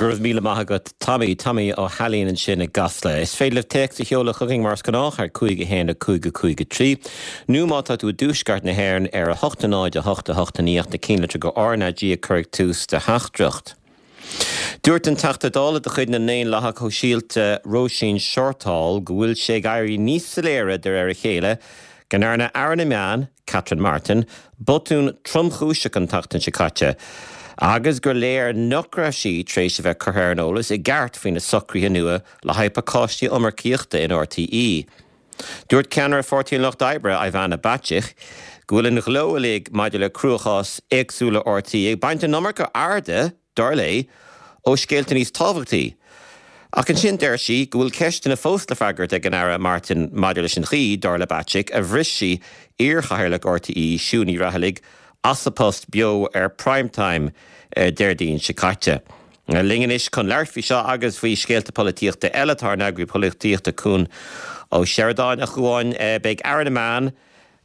Go raibh míle maith agat Tommy, Tommy Ó hAilín ansin i gCasla. Is féidir libh téacs a sheoladh chugainn mar is gnách ar 5 1 5 5 3 nó má tá tú i dtuaisceart na hÉireann ar 8 0 8 8 9 ach na cinnlitreacha RnaG a chur ag tús do theachtaireacht. Dúirt an Teachta Dála de chuid na nDaonlathach Shóisialta Róisín Shortall go bhfuil sé ag éirí níos soiléire de réir a chéile go ndearna Aire na Meán, Catherine Martin, botún tromchúiseach an tseachtain seo caite agus gur léir nach raibh sí tar éis a bheith curtha ar an eolas i gceart faoi na socruithe nua le haghaidh pacáistí iomarcaíochta in RTÉ. Dúirt ceannaire Pháirtí an Lucht Oibre, Ivana Bacik, go bhfuil an ghleo uilig maidir le cruachás éagsúla RTÉ ag baint an iomarca airde dar léi, ó scéalta níos tábhachtaí. Ach ansin deir sí go bhfuil ceisteanna fós le freagairt ag an Aire Martin maidir leis an chaoi, dar le Bacik, a bhris sí iar-chathaoirleach RTÉ, Siún Ní Raghallaigh, as a post beo ar Prime Time Déardaoin seo caite. Linn anois chun labhairt faoi seo agus faoi scéalta polaitíochta eile tá ár n-eagraí polaitíochta Cuan Ó Seireadáin. A Chuáin, beidh Aire na Meán,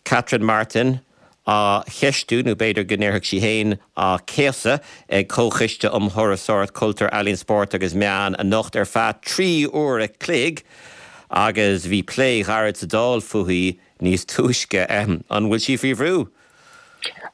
Catherine Martin á cheistiú, nó b'fhéidir go ndéarfadh sí féin á céasadh, ag Comhchoiste um Thurasóireacht, Cultúr, Ealaíon, Spórt agus Meán anocht ar feadh 3 uair a chloig agus bhí plé ghairid sa Dáil fúithi níos túisce. An bhfuil sí faoi bhrú?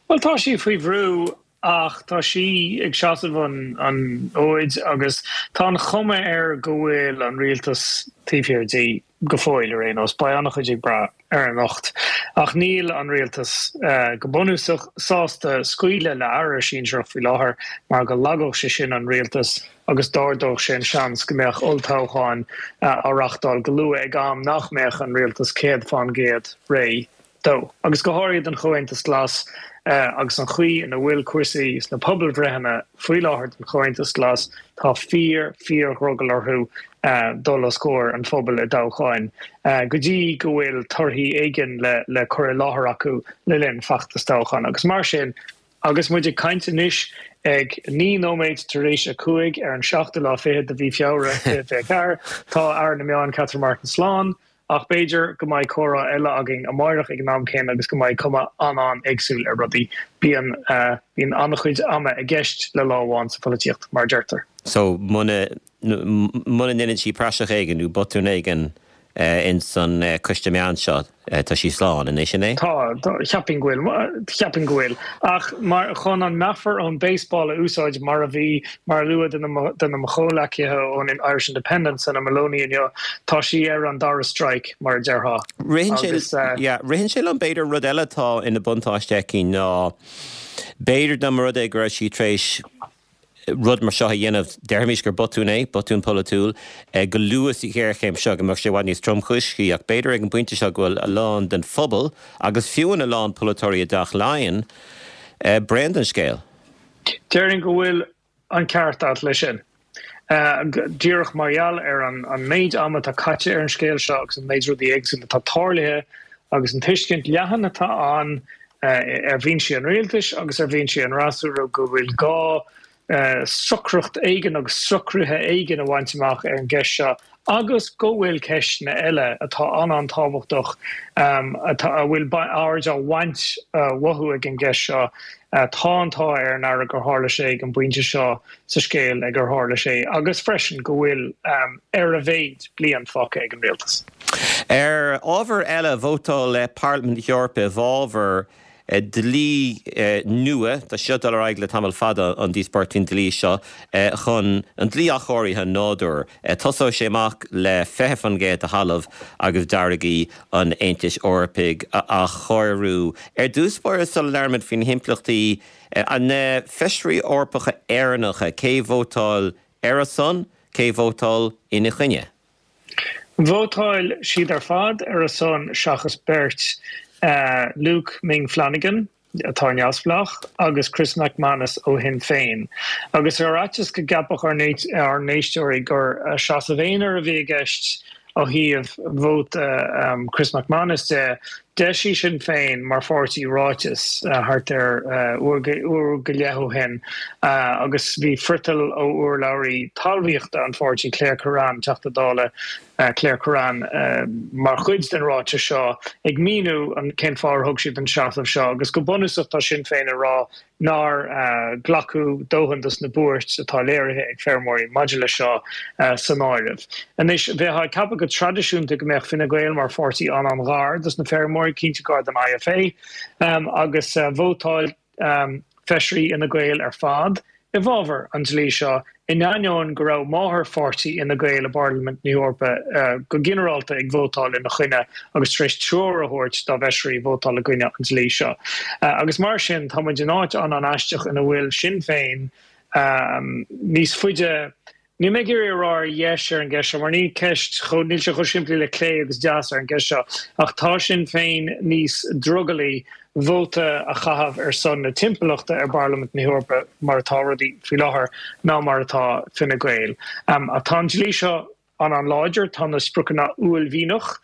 Bhuel, tá sí faoi bhrú ach tá sí ag seasamh an fhóid agus tá an chuma air go bhfuil an rialtas taobh thiar di go fóill ar aon nós. Beidh an-chuid ag brath ar anocht. Ach níl an rialtas, go bunúsach, sásta scaoileadh le aire sinsearach faoi láthair mar go lagódh sé sin an rialtas agus d'ardódh sé an seans go mbeadh olltoghcháin á reáchtáil go luath ag am nach mbeadh an rialtas 100% réidh dó, agus go háirithe don Chomhaontas Glas agus an chaoi ina bhfuil cúrsaí sna pobalbhreitheanna faoi láthair don Chomhaontas Glas, tá fíor, fíor-dhrogall orthu dul os comhair an phobail i dtoghcháin go dtí go bhfuil torthaí éigin le cur i láthair acu le linn feachtas toghcháin. Agus mar sin, agus muid ag caint anois ag 9 nóiméad tar éis a 5 ar an seachtú lá fichead de mhí Feabhra 2024, tá Aire na Meán Catherine Martin slán. Ach b'fhéidir go mbeidh comhrá eile againn amáireach ag an am céanna agus go mbeidh cuma an-an-éagsúil ar rudaí. Bíonn, bíonn an-chuid ama i gceist le lá amháin sa pholaitíocht, mar a deirtear. So, muna, muna ndeineann sí praiseach éigin nó botún éigin ins an coiste meán seo, tá sí slán, an é sin é? Tá, cheapfainn go bhfuil, cheapfainn go bhfuil. Ach mar, chun an meafar ón baseball a úsáid mar a bhí, mar a luadh duine de mo chomhleacaithe ón Irish Independent, Senan Moloney inniu, tá sí ar an dara strike, mar a déarfá. Ritheann sé, yeah, ritheann sé liom b'fhéidir rud eile atá ina buntáiste aici ná b'fhéidir dá mba rud é go raibh sí tar éis rud mar seo a dhéanamh, déarfaimis gur botún é, botún polaitiúil, go luath sa ghéarchéim seo go mbeadh sé i bhfad níos tromchúisí ach b'fhéidir ag an bpointe seo go bhfuil a lán den phobal agus fiú a lán polaiteoirí i dTeach Laighean bréan den scéal. Déarfainn go bhfuil an ceart agat leis sin. Díreach mar gheall ar an méid ama atá caite ar an scéal seo agus an méid rudaí éagsúla atá tarlaithe agus an tuiscint leathan atá ann ar bhinsí an rialtais agus ar bhinsí an fhreasúra go bhfuil gá socracht éigin agus socruithe éigin a bhaint amach ar an gceist seo agus go bhfuil ceisteanna eile atá an-an-tábhachtach atá, a bhfuil aird á bhaint uathu ag an gceist seo. Tá an t-ádh ar an Aire gur tharla sé ag an bpointe seo sa scéal ag ar tharla sé agus freisin go bhfuil, ar a mhéad, bliain fágtha ag an rialtas. Ar ábhar eile, vótáil Parlaimint na hEorpa i bhfabhar dlí nua, tá sé seo ag dul ar aghaidh le tamall fada, an díospóireacht faoin dlí seo, chun an dlí athchóirithe nádúir. Tosóidh sé amach le 20% de thalamh agus d'fharraigí an Aontais Eorpaigh a athchóiriú. Ar dtús báire, sula labhraímid faoi na himpleachtaí, na Feisirí Eorpacha Éireannacha, cé vótáil ar a son, cé vótáil ina choinne? Vótáil siad ar fad ar a son seachas beirt, Luke Ming Flanagan, atá neamhspleách, agus Chris MacManus ó Shinn Féin. Agus ar fhaitíos go gceapfadh ár n-éisteoirí gur seasamh aonair a bhí i gceist ó thaobh vóta Chris MacManus de. D'eisigh Sinn Féin mar pháirtí ráiteas thart ar uair go leith ó shin agus bhí friotal ó urlabhraí talmhaíochta an pháirtí, Claire Kerrane, Teachta Dála Claire Kerrane, mar chuid den ráiteas seo ag míniú cén fáth ar thug siad an seasamh seo agus go bunúsach tá Sinn Féin ag rá nár glacadh dóthain dos na buairt atá léirithe ag feirmeoirí maidir leis seo san áireamh. Anois, bheifeá ag ceapadh go traidisiúnta go mbeadh Fine Gael mar pháirtí an-an-ghar dos na feirmeoirí, cinnte gar don IFA, agus vótáil feisirí Fhine Gael ar fad i bhfabhar an dlí seo in ainneoin go raibh máthairpháirtí Fhine Gael i bParlaimint na hEorpa go ginearálta ag vótáil ina choinne agus tar éis treoir a thabhairt dá bhfeisirí vótáil i gcoinne an dlí seo. Agus mar sin, tá muid in áit an-an-aisteach ina bhfuil Sinn Féin níos faide, níl mé ag iarraidh a rá ar dheis ar an gceist seo, mar níl ceist chomh, níl sé chomh simplí le clé agus deas ar an gceist seo, ach tá Sinn Féin níos drogallaí vóta a chaitheamh ar son na timpeallachta i bParlaimint na hEorpa mar atá rudaí faoi láthair ná mar atá Fine Gael. Ach tá an dlí seo an-an-láidir, tá na spriocanna uaillmhianach.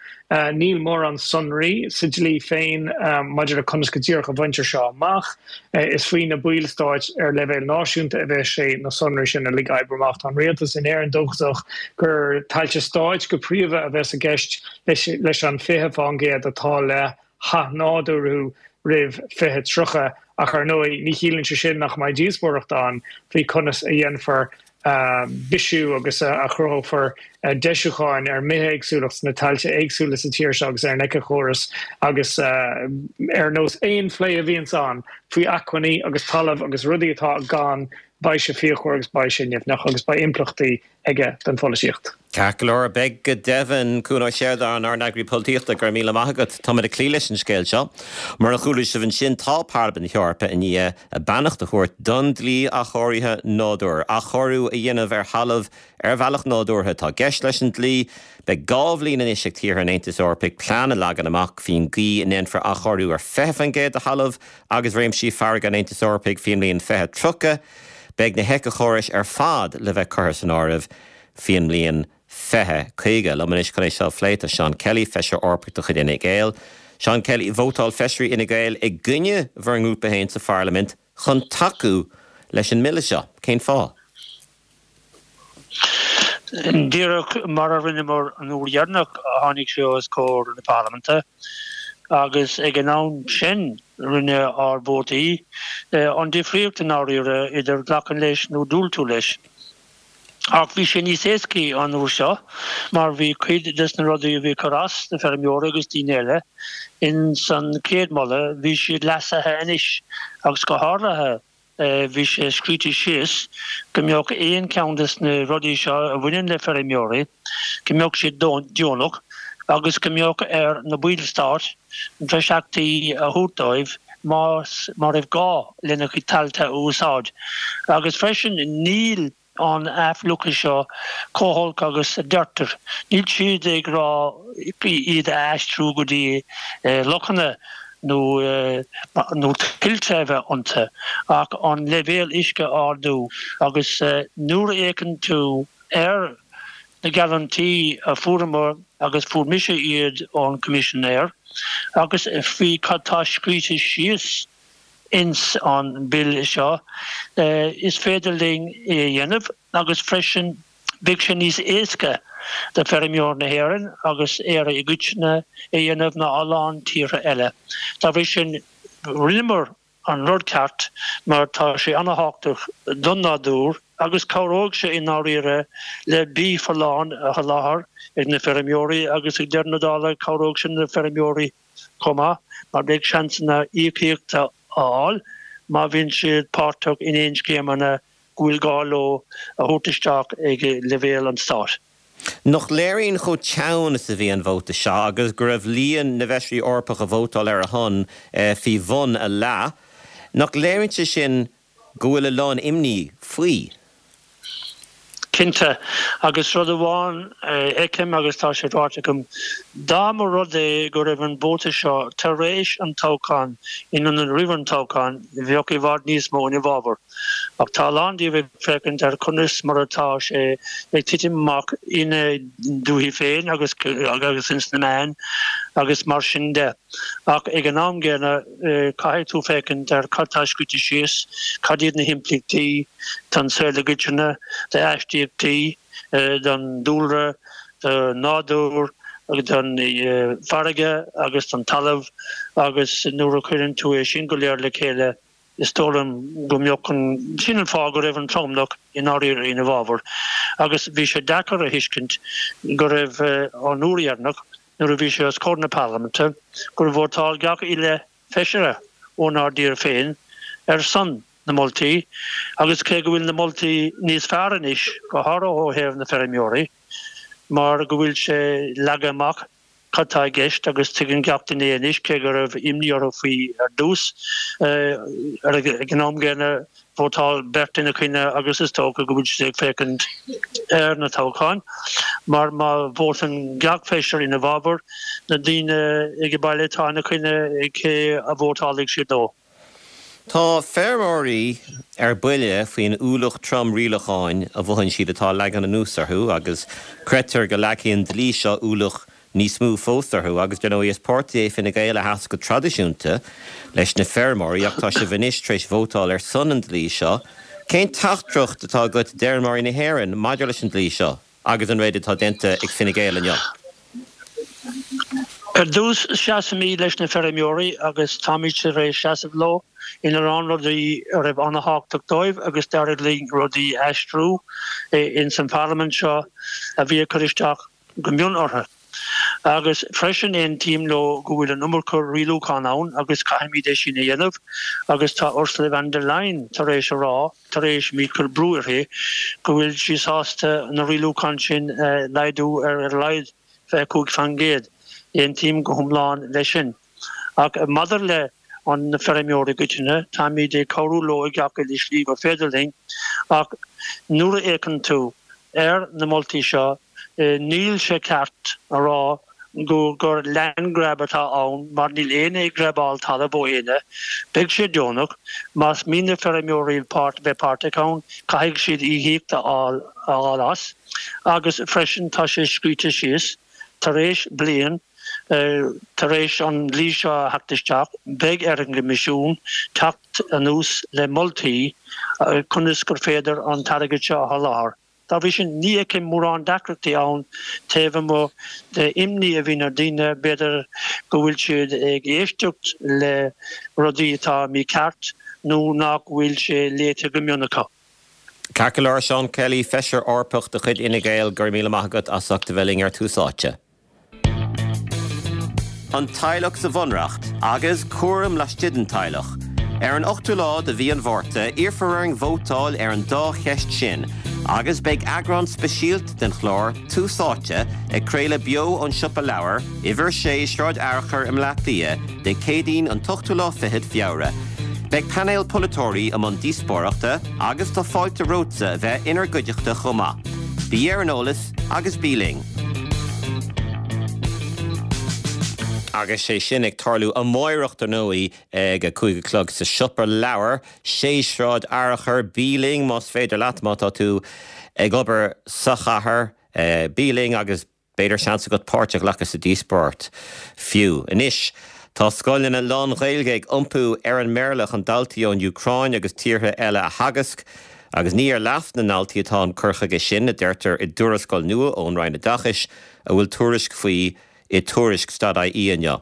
Níl mórán sonraí sa dlí féin maidir le conas go díreach a bhaintear seo amach. Is faoi na ballstáit ar leibhéal náisiúnta a bheas sé na sonraí sin uilig a oibriú amach. Tá an rialtas in Éirinn dóchasach gur tailte stáit go príomha a bheas i gceist leis an 20% atá le hathnádúrú roimh 2030 ach ar ndóigh ní chiallaíonn sé sin nach mbeidh díospóireacht ann faoi conas a dhéanfar bisiú agus a chruthófar deisiúcháin ar an mbithéagsúlacht sna tailte éagsúla sa tír seo agus ar an éiceachóras agus ar nós aon phlé a bhíonns ann faoi acmhainní agus talamh agus rudaí atá gann, beidh sé fíochmhar agus beidh sé nimhneach agus beidh impleachtaí aige don pholaitíocht. Ceart go leor, beidh go deimhin. Cuan Ó Seireadáin, ár n-eagraí polaitíochta, go raibh míle maith agat. Táimid ag cloí leis an scéal seo. Mar a chuala sibh ansin, tá Parlaimint na hEorpa i ndiaidh a beannacht a thabhairt don dlí athchóirithe nádúir. Athchóiriú a dhéanamh ar thalamh ar bhealach nádúrtha atá i gceist leis an dlí. Beidh 2 bhliain anois ag tíortha an Aontais Eorpaigh plean a leagan amach faoin gcaoi a ndéanfar athchóiriú ar 20% de thalamh agus réimsí farraige an Aontais Eorpaigh faoin mbliain 2030. Beidh na héiceachórais ar fad le bheith curtha san áireamh faoin mbliain 2050. Liom anois chun é seo a phlé tá Seán Kelly, Feisire Eorpach de chuid Fhine Gael. Seán Kelly, vótáil feisirí Fhine Gael i gcoinne bhur ngrúpa féin sa Pharlaimint chun tacú leis an mbille seo. Cén fáth? Díreach mar a rinneamar an uair dheireanach a tháinig sé os comhair na Parlaiminte agus ag an am sin rinne ár vótaí an difríocht i ndáiríre idir glacadh leis nó diúltú leis. Ach bhí sé níos éascaí an uair seo mar bhí cuid des na rudaí a bhí ag cur as do feirmeoirí agus daoine eile ins an chéad moladh, bhí siad leasaithe anois agus go háirithe bhí sé scríte síos go mbeadh aon cheann des na rudaí seo a bhaineann le feirmeoirí, go mbeadh siad deonach agus go mbeadh ar na ballstáit dreasachtaí a thabhairt dóibh más má raibh gá lena gcuid tailte a úsáid. Agus freisin níl an athfhliuchadh seo chomh holc agus a deirtear. Níl siad ag rá iad a aistriú go dtí lochanna nó nó tuilte a bheith iontu ach an leibhéal uisce a ardú agus nuair a fhéachann tú ar na geallúintí a fuaireamar agus fuair mise iad ón Coimisinéir agus faoi cad tá scríte síos ins an Bille seo, is féidir linn é a dhéanamh agus freisin beidh sé níos éasca do feirmeoir na hÉireann agus Éire i gcoitinne é a dhéanamh ná a lán tíortha eile. Dá bhrí sin, rinneamar an rud ceart mar tá sé ana-thábhachtach don nádúr agus cabhróidh sé i ndáiríre le bia folláin a sholáthar ag na feirmeoirí agus ag deireadh na dála cabhróidh sé na feirmeoirí chomh maith mar beidh seansanna íocaíochta a fháil má bhíonn siad páirteach in aon scéimeanna go bhfuil gá leo a thabhairt isteach ag leibhéal an stáit. Nach léiríonn chomh teann is a bhí an vóta seo agus go raibh líon na bhfeisirí Eorpach a vótáil ar a shon faoi bhun a leath, nach léiríonn sé sin go bhfuil a lán imní faoi? Cinnte, agus rud amháin a fheicim agus tá sé ráite agam, dá mba rud é go raibh an vóta seo tar éis an toghcháin in ionad roimh an toghchán, bheadh i bhfad níos mó ina bhfabhar. Ach tá a lán díobh ag féachaint ar conas mar atá sé ag titim amach ina ndúichí féin agus agus ins na meáin agus mar sin de. Ach ag an am gcéanna, caithfidh tú féachaint ar cad tá scríte síos, cad iad na himpleachtaí don saol i gcoitinne, d'aistíochtaí, don dúlra, don nádúr, don farraige agus don talamh agus nuair a chuireann tú é sin go léir le chéile, Is dóigh liom go mbeadh an, sin an fáth go raibh an tromlach i ndáiríre ina bhfabhar agus bhí sé deacair a thuiscint go raibh an uair dheireanach nuair a bhí sé os comhair na Parlaiminte gur vótáil gach uile feisire ónár dtír féin ar son na moltaí agus cé go bhfuil na moltaí níos fearr anois, go háirithe ó thaobh na feirmeoirí mar go bhfuil sé leagtha amach cad tá i gceist agus tuigeann gach duine é anois, cé go raibh imní orthu faoi ar dtús. Ag an am gcéanna, vótáil beirt ina choinne agus is dócha go bhfuil siad ag féachaint ar na toghcháin, mar má vótann gach feisire ina bhfabhar, na daoine ag baile atá ina choinne, cé a vótálfaidh siad dó? Tá feirmeoirí ar buile faoin ualach trom rialacháin a mhothaíonn siad atá leagtha anuas orthu agus creidtear go leagfaidh an dlí seo ualach níos mó fós orthu agus dar ndóigh is páirtí é Fine Gael a sheas go traidisiúnta leis na feirmeoirí ach tá sibh anois tar éis vótáil ar son an dlí seo. Cén teachtaireacht atá agat d'fheirmeoirí na hÉireann maidir leis an dlí seo? Agus an rud atá déanta ag Fine Gael inniu. Ar dtús, seasaimid leis na feirmeoirí agus táimid tar éis seasamh leo ina lán rudaí a raibh an-thábhachtach dóibh agus d'éirigh linn rudaí a aistriú ins an Pharlaimint seo a bhí ag cur isteach go mion orthu. Agus freisin aontaím leo go bhfuil an iomarca rialúchán ann agus caithfimid é sin a dhéanamh agus tá Ursula von der Leyen tar éis a rá, tar éis muid cur brú uirthi, go bhfuil sí sásta na rialúcháin sin a laghdú ar a laghad 25%. Aontaím go hiomlán leis sin. Ach maidir le an na feirmeoirí i gcoitinne, táimid ag cabhrú leo i gach uile slí gur féidir linn, ach nuair a fhéachann tú ar na moltaí seo, níl sé ceart a rá go gur land grab atá ann mar níl éinne ag grabáil talamh ó éinne. Beidh sé deonach. Más mian le feirmeoirí páirt bheith páirteach ann, caithfidh siad íocaíocht a fháil as. Agus freisin tá sé scríte síos, tar éis bliain, tar éis an dlí seo a theacht isteach, beidh ar an gCoimisiún teacht anuas le moltaí conas gur féidir an t-airgead seo a sholáthar. Dá bhrí sin, ní fheicim mórán deacrachtaí ann taobh amuigh de imní a bhíonn ar daoine, b'fhéidir go bhfuil siad ag éisteacht le rudaí atá mícheart nó nach bhfuil sé léite go mion acu. Ceart go leor, Seán Kelly, Feisire Eorpach de chuid Fhine Gael, go raibh míle maith agat as ucht a bheith linn ar Tús Áite. An teaghlach sa Bhunreacht agus cúram laistigh den teaghlach. Ar an ochtú lá de mhí an Mhárta, iarrfar orainn vótáil ar an dá cheist sin agus beidh eagrán speisialta den chlár Tús Áite ag craoladh beo ón Siopa Leabhar, Uimhir 6, Sráid Fhearchair i mBleá Cliath, Dé Céadaoin an t-ochtú lá fichead Feabhra. Beidh painéal polaiteoirí i mbun díospóireachta agus tá fáilte romhatsa a bheith inár gcuideachta chomh maith. Bí ar an eolas agus bí linn! Agus sé sin ag tarlú amáireach dar ndóigh ag a 5 a chlog sa Siopa Leabhar, 6 Sráid Fhearchair. Bí linn más féidir leat, má tá tú ag obair sa chathair, bí linn agus B'fhéidir seans agat páirt a ghlacadh sa díospóireacht fiú. Anois, tá scoileanna lán-Ghaeilge ag iompú ar an mBéarla chun daltaí ón Úcráin agus tíortha eile a theagasc, agus ní ar leas na ndaltaí atá an cur chuige sin, a deirtear i dtuarascáil nua ón Roinn Oideachais, a bhfuil tuairisc faoi i Tuairisc dot ie inniu.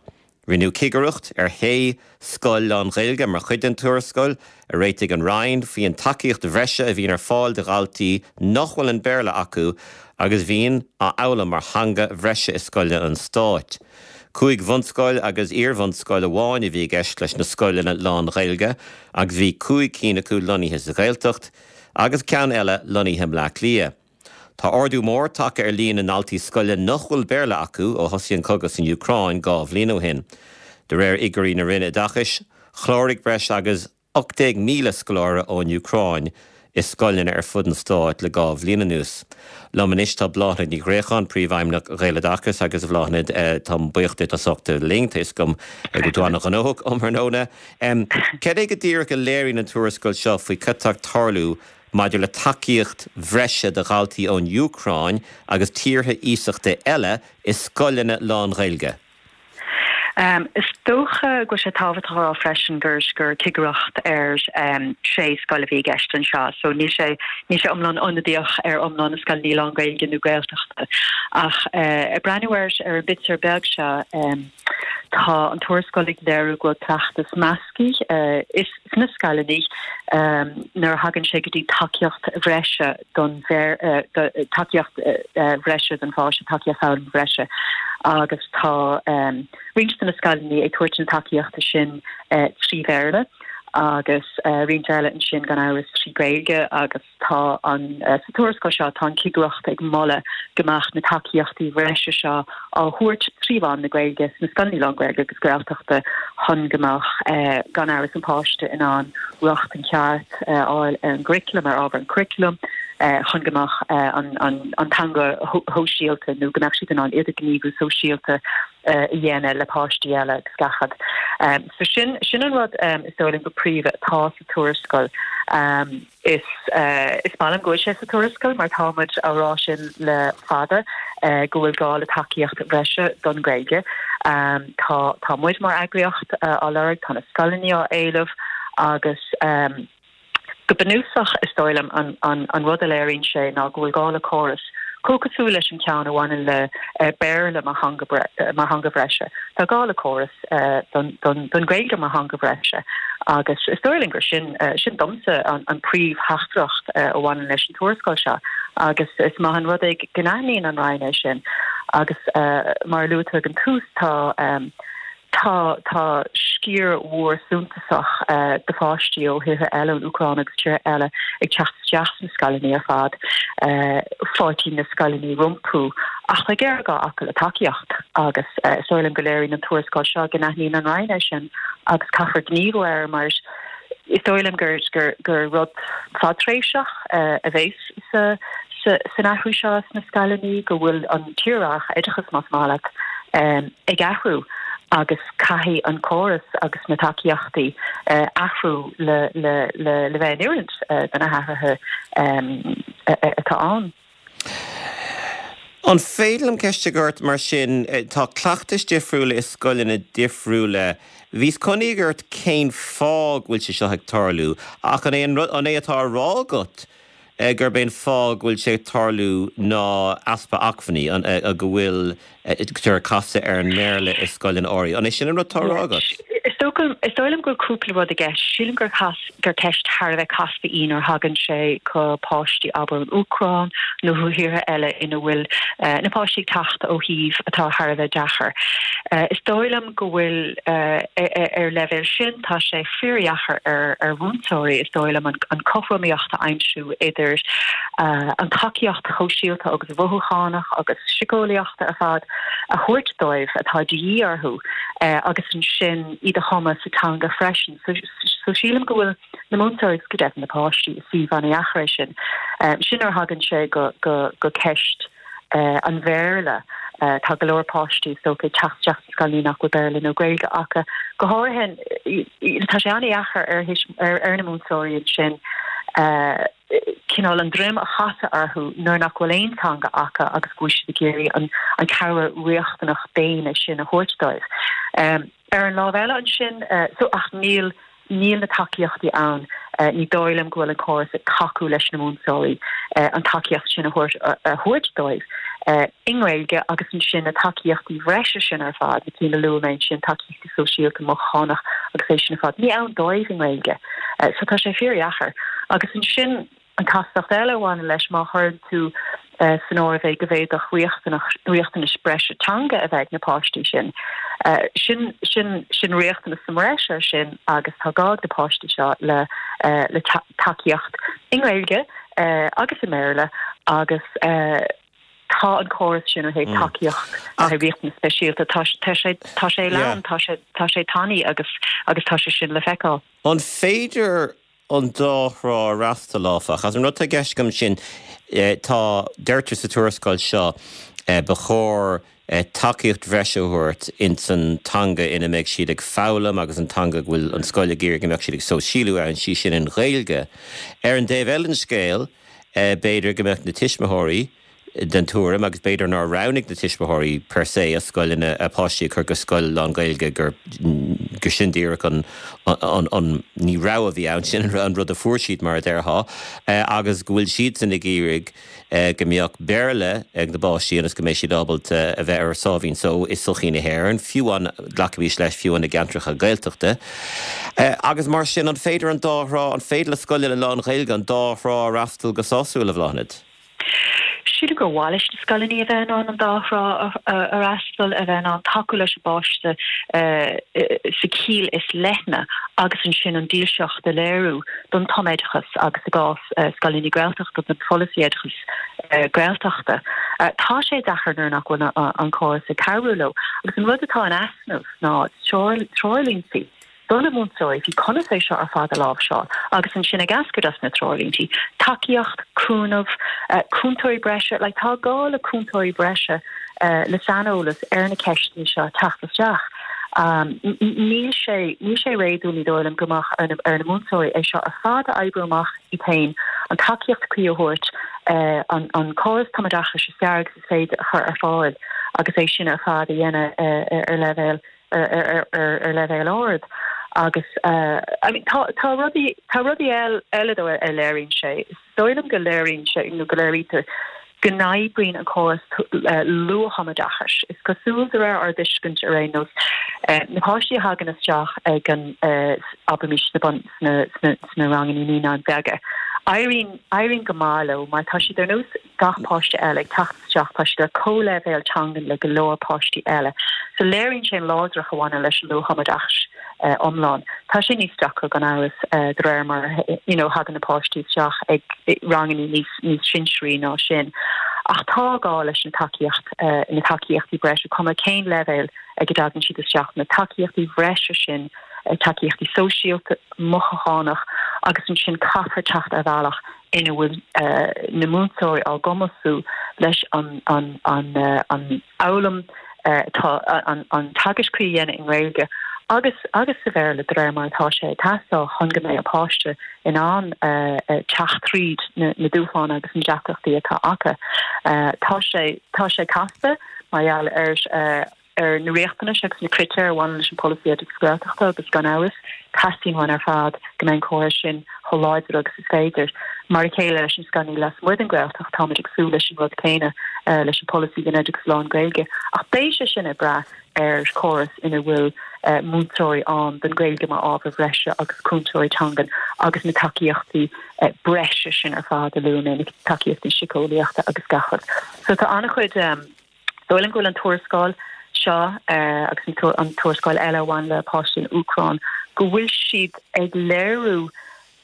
Rinneadh cigireacht ar shé scoil lán-Ghaeilge mar chuid den tuarascáil a réitigh an Roinn faoin tacaíocht bhreise a bhíonn ar fáil do dhaltaí nach bhfuil an Béarla acu agus a bhíonn á fhoghlaim mar theanga bhreise i scoileanna an stáit. Cúig bhunscoil agus iar-bhunscoil amháin a bhí i gceist leis na scoileanna lán-Ghaeilge agus bhí cúig cinn acu lonnaithe sa Ghaeltacht agus ceann eile lonnaithe i mBleá Cliath. Tá ardú mór tagtha ar líon na ndaltaí scoile nach bhfuil Béarla acu ó thosaigh an cogadh san Úcráin 2 bhliain ó shin. De réir fhigiúirí na Roinne Oideachais, chláraigh breis agus 18,000 scoláire ón Úcráin i scoileanna ar fud an stáit le 2 bhliain anuas. Liom anois tá Bláthnaid Ní Ghréacháin, Príomhfheidhmeannach Ghaeloideachas agus a Bhláthnaid, táim buíoch duit as ucht a bheith linn, tá 'fhios agam go bhfuil tú an-ghnóthach um thráthnóna. Cad é go díreach a léiríonn an tuarascáil seo faoi cad tá ag tarlú maidir le tacaíocht bhreise do dhaltaí ón Úcráin agus tíortha iasachta eile i scoileanna lán-Ghaeilge. Is dócha go bhfuil sé tábhachtach a rá freisin gur gur cigireacht ar sé scoil a bhí i gceist anseo so níl sé níl sé iomlán ionadaíoch ar iomlán na scoileanna lán-Ghaeilge nó Gaeltachta. Ach ag breathnú ar ar an bpictiúr beag seo tá an tuarascáil ag léiriú go bhfuil cleachtas measctha is sna scoileanna nuair a thagann sé go dtí tacaíocht bhreise don tacaíocht bhreise don pháiste, tacaíocht foghlama bhreise agus tá roinnt de na scoileanna ag tabhairt na tacaíochta sin trí Bhéarla agus roinnt eile ansin gan amhras trí Ghaeilge agus tá an sa tuarascáil seo tá an chigireacht ag moladh go mbeadh na tacaíochtaí bhreise seo á thabhairt trí mheán na Gaeilge sna scoileanna lán-Ghaeilge agus Gaeltachta chun go mbeadh gan amhras an páiste in ann rochtain cheart a fháil ar an gcuraclam, ar ábhar an churaclaim, chun go mbeadh an teanga shóisialta nó go mbeadh siad in ann idirghníomhú sóisialta a dhéanamh le páistí eile agus gach rud. So sin sin an rud is dóigh liom go príomha atá sa tuarascáil. Is is maith liom go bhfuil sé sa tuarascáil mar tá muid á rá sin le fada go bhfuil gá le tacaíocht bhreise don Ghaeilge. Tá tá muid mar eagraíocht á lorg, tá na scoileanna á éileamh agus go bunúsach is dóigh liom an an an rud a léiríonn sé ná go bhfuil gá le córas chomh cosúil leis an ceann a bhaineann le Béarla mar theanga mar theanga bhreise. Tá gá le córas don Ghaeilge mar theanga bhreise agus is dóigh liom gur sin, sin domsa an príomhtheachtaireacht a bhaineann leis an tuarascáil seo agus is maith an rud é go n-aithníonn an Roinn é sin agus mar a luaigh tú ag an tús tá tá tá sciar mhór suntasach de pháistí ó thíortha eile, ón Úcráin agus tíortha eile ag teacht isteach sna scoileanna ar fad. Fáiltíonn na scoileanna rompu ach tá géarghá acu le tacaíocht agus is dóigh liom go léiríonn an tuarascáil seo go n-aithníonn an Roinn é sin agus caithfear gníomhú air mar is dóigh liom gur gur rud fadtréimhseach a bheas sa san athrú seo sna scoileanna, go bhfuil an tírdhreach oideachais, más maith leat, ag athrú agus caithfidh an córas agus na tacaíochtaí athrú le le bheith in oiriúint do na hathruithe atá ann. An féidir liom ceist a chur ort mar sin, tá cleachtais difriúla i scoileanna difriúla. Bhíos chun iarraidh ort cén fáth go bhfuil sé seo ag tarlú, ach an é an rud, an é atá á rá agat gurb é an fáth go bhfuil sé ag tarlú ná easpa acmhainní, go bhfuil ag casadh ar an mBéarla i scoileanna áirithe. An é sin an rud atá á rá agat? Is dóigh liom go bhfuil cúpla rud i gceist. Sílim gur gur ceist thar a bheith casta í nuair a thagann sé go páistí, abair, ón Úcráin nó ó thíortha eile ina bhfuil na páistí ag teacht ó shuímh atá thar a bheith deacair. Is dóigh liom go bhfuil, ar leibhéal sin, tá sé fíordheacair ar mhúinteoirí, is dóigh liom, an cothromaíocht a aimsiú idir an tacaíocht shóisialta agus mhothúchánach agus siceolaíochta ar fad a thabhairt dóibh atá de dhíth orthu agus ansin iad a thumadh sa teanga freisin. So sílim go bhfuil na múinteoirí agus go deimhin na páistí i suíomh an-dheacair é sin. Sin nuair a thagann sé go ceist an Bhéarla. Tá go leor páistí, is dócha, ag teacht isteach sna scoileanna nach bhfuil Béarla nó Gaeilge acu. Go háirithe, tá sé an-dheacair ar ar na múinteoirí ansin cineál an droim a chasadh orthu nuair nach bhfuil aon teanga acu agus go bhfuil siad ag iarraidh an cabhair riachtanach daonna sin a thabhairt dóibh. Ar an lámh eile ansin, so ach níl, níl na tacaíochtaí ann, ní dóigh liom go bhfuil an córas ag tacú leis na múinteoirí an tacaíocht sin a thabhairt, a thabhairt dóibh i nGaeilge agus ansin na tacaíochtaí bhreise sin ar fad, na cinn a luaigh mé ansin, tacaíochtaí sóisialta, mothúchánach agus é sin ar fad, ní ann dóibh i nGaeilge. So tá sé fíordheacair. Agus ansin. An chastacht eile a bhaineann leis, má chuireann tú san áireamh é go bhféadfadh riachtanais breise teanga a bheith ag na páistí sin, sin, sin, sin riachtanas sa mbreis air sin agus tá gá ag na páistí seo le, le tacaíocht i nGaeilge agus i mBéarla agus tá an córas sin ó thaobh tacaíocht le haghaidh riachtanas speisialta, tá, tá sé, tá sé lán, tá sé, tá sé tanaí agus, agus tá sé sin le feiceáil. An féidir an dá thrá a fhreastal, áfach. Agus an rud atá i gceist agam ansin, tá, deirtear sa tuarascáil seo, ba chóir tacaíocht bhreise a thabhairt ins an teanga ina mbeidh siad ag foghlaim agus an teanga go bhfuil an scoil ag iarraidh go mbeadh siad ag sóisialú ann, sí sin an Ghaeilge. Ar an dtaobh eile den scéal, b'fhéidir go mbeadh na tuismitheoirí. den tuairim, agus b'fhéidir nár roghnaigh na tuismitheoirí per se a scoileanna, a bpáistí a chur go scoil lán-Ghaeilge, gur, gur sin díreach an, an, an, ní rogha a bhí ann, sin an rud a fuair siad mar a déarfá, agus go bhfuil siadsan ag iarraidh go mbeadh Béarla ag na bpáistí ionas go mbeidh siad ábalta a bheith ar a sáimhín só i sochaí na hÉireann, fiú amháin, glacaimis leis, fiú amháin i gceantracha Gaeltachta. Agus mar sin, an féidir an dá thrá, an féidir le scoileanna lán-Ghaeilge an dá thrá a fhreastal go sásúil, a Bhláthnaid? Sílim gur mhaith leis na scoileanna a bheith in ann an dá thrá a fhreastal, a bheith in ann tacú leis an bpáiste sa chiall is leithne agus ansin an dílseacht a léiriú don tumoideachas agus i gcás scoileanna Gaeltachta don pholasaí oideachais Gaeltachta. Tá sé deacair nuair nach bhfuil an córas ag cabhrú leo agus an rud atá in easnamh ná treoirlínte. do na múinteoirí faoi conas é seo ar fad a láimhseáil agus ansin ag eascairt as na treoirlíntí, tacaíocht, cúnamh, cúntóirí breise, like tá gá le cúntóirí breise le saineolas ar na ceisteanna seo teacht isteach. Níl sé, níl sé réadúil, ní dóigh liom, go mbeadh ar na, ar na múinteoirí é seo ar fad a oibriú amach iad féin, an tacaíocht cuí a thabhairt, an, an córas tumoideachais is fearr agus is féidir a chur ar fáil agus é sin ar fad a dhéanamh ar leibhéal ar leibhéal ard agus I mean tá tá rudaí tá rudaí eile though a léiríonn sé. Is dóigh liom go léiríonn sé nó go léirítear go n-oibríonn an córas luath-thumoideachais. Is cosúil de réir ár dtuiscint ar aon nós na páistí a thagann isteach ag an abraimis sna bun sna sna sna ranganna naíonáin bheaga éiríonn éiríonn go maith leo mar tá siad ar nós gach páiste eile ag teacht isteach, tá siad ar comhleibhéal teangan le go leor páistí eile. So léiríonn sé an láidreacht a bhaineann leis an luath-thumoideachas iomlán. Tá sé níos deacra gan amhras de réir mar you know thagann na páistí isteach ag ranganna níos níos sinsearaí ná sin. Ach tá gá leis an tacaíocht, na tacaíochtaí breise, cuma cén leibhéal ag a dtagann siad isteach, na tacaíochtaí bhreise sin, tacaíochtaí sóisialta, mothúchánach agus ansin caithfear teacht ar bhealach ina bhfuil na múinteoirí á gcumasú leis an fhoghlaim atá an teagasc cuí a dhéanamh i nGaeilge agus agus sa Bhéarla de réir mar atá sé ag teastáil chun go mbeidh an páiste in ann teacht tríd na dúshláin agus na deacrachtaí atá acu. Tá sé tá sé casta mar gheall ar ar na riachtanais agus na critéir a bhaineann leis an bpolasaí oideachais Gaeltachta agus gan amhras, teastaíonn uainn ar fad go mbeidh an córas sin chomh láidir agus is féidir. Mar a chéile leis na scoileanna lasmuigh den Ghaeltacht, táimid ag súil leis an rud céanna leis an bpolasaí don oideachas lán-Ghaeilge ach beidh sé sin ag brath ar chóras ina bhfuil múinteoirí ann don Ghaeilge mar ábhar bhreise agus cúntóirí teangan agus na tacaíochtaí breise sin ar fad a luaigh mé, na tacaíochtaí síceolaíochta agus gach rud. So tá an-chuid. Dóigh liom go bhfuil an tuarascáil seo agus an tuarascáil eile a bhain le páistí na Úcráine, go bhfuil siad ag léiriú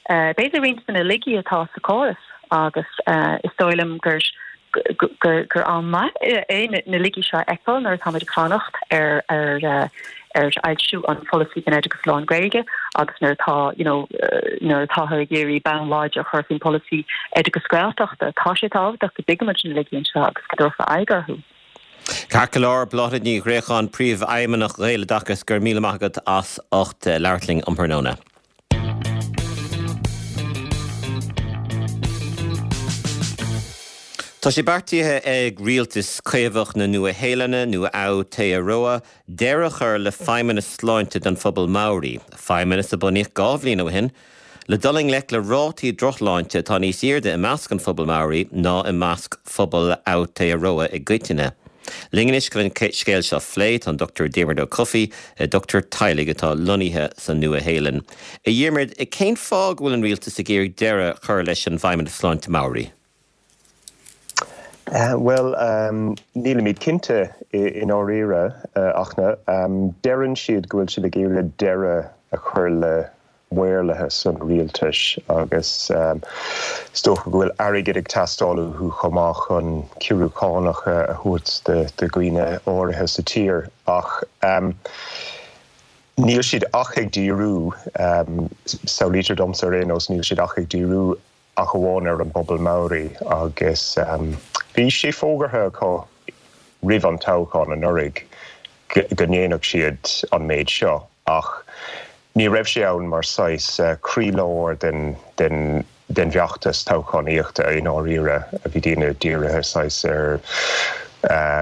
b'fhéidir roinnt de na laigí atá sa chóras agus is dóigh liom gur gur am maith é na laigí seo a fheiceáil nuair atáimid ag fanacht ar ar ar fhoilsiú an pholasaí don oideachas lán-Ghaeilge agus nuair atá you know nuair atáthar ag iarraidh bonn láidir a chur faoin pholasaí oideachas Gaeltachta, tá sé tábhachtach go dtuigimid na laigí anseo agus go dtabharfar aghaidh orthu. Ceart go leor, Bláthnaid Ní Ghréacháin, Príomhfheidhmeannach Ghaeloideachas, go raibh míle maith agat as ucht labhairt linn um thráthnóna. Tá sé beartaithe ag rialtas Caomhach na Nua-Shéalainne, nó Aotearoa, deireadh a chur le feidhmeannas sláinte don phobal Maori, feidhmeannas a bunaíodh 2 bhliain ó shin le dul i ngleic le rátaí drochshláinte atá níos airde i measc an phobail Maori ná i measc phobal Aotearoa i gcoitinne. Linn anois chun an scéal seo a phlé tá an Dr Diarmuid Ó Cofaigh, dochtúir teaghlaigh atá lonnaithe sa Nua-Shéalainn. A Dhiarmuid, cén fáth go bhfuil an rialtas ag iarraidh deireadh a chur leis an bhFeidhmeannas Sláinte Maori? Bhuel, nílimid cinnte i ndáiríre, ach deireann siad go bhfuil siad ag iarraidh deireadh a chur le maorlathas an rialtais agus is dócha go bhfuil airgead ag teastáil uathu chomh maith chun ciorrú cánach a thabhairt do dhaoine áirithe sa tír ach níl siad ach ag díriú, samhlaítear domsa ar aon nós, níl siad ach ag díriú ach amháin ar an bpobal Maori agus bhí sé fógartha acu roimh an toghchán anuraidh go ndéanfadh siad an méid seo ach. Ní raibh sé ann mar saghas croílár den den den bhfeachtas toghchánaíochta i ndáiríre. Bhí daoine dírithe saghas ar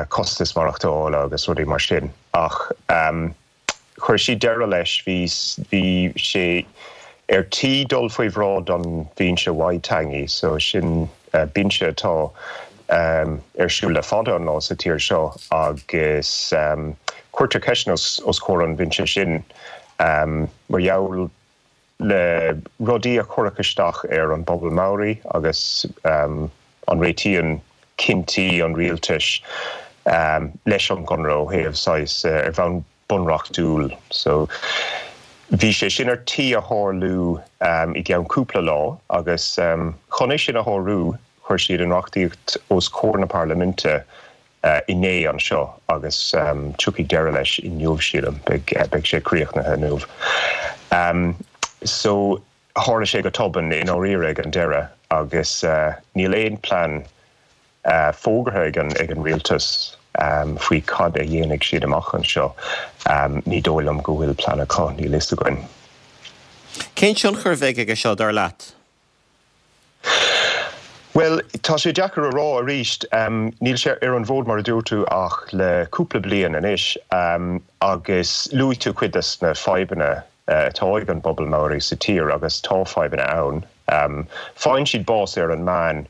costas maireachtála agus rudaí mar sin. Ach chuir siad deireadh leis. Bhí bhí sé ar tí dul faoi bhráid an Bhinse Waitangi, so sin binse atá ar siúl le fada an lá sa tír seo agus cuirtear ceisteanna os comhair an bhinse sin mar gheall le rudaí a cuireadh isteach ar an bpobal Maori agus an réitíonn cinntí an rialtais leis an gconradh ó thaobh saghas ar bhonn bunreachtúil. So bhí sé sin ar tí a tharlú i gceann cúpla lá agus chun é sin a shárú chuir siad an reachtaíocht os comhair na parlaiminte inné anseo agus tiocfaidh deireadh leis inniu sílim, beidh sé críochnaithe inniu. So tharla sé go tobann i ndáiríre ag an deireadh agus níl aon plean fógartha ag an ag an rialtas faoi cad a dhéanfaidh siad amach anseo. Ní dóigh liom go bhfuil plean acu, níl fhios againn. Cén tionchar a bheidh aige seo, dar leat? Bhuel, tá sé deacair a rá arís. Níl sé ar an bhfód mar a dúirt tú ach le cúpla bliain anois agus luaigh tú cuid des na fadhbanna atá ag an bpobal Maori sa tír agus tá fadhbanna ann. Faigheann siad bás ar an meán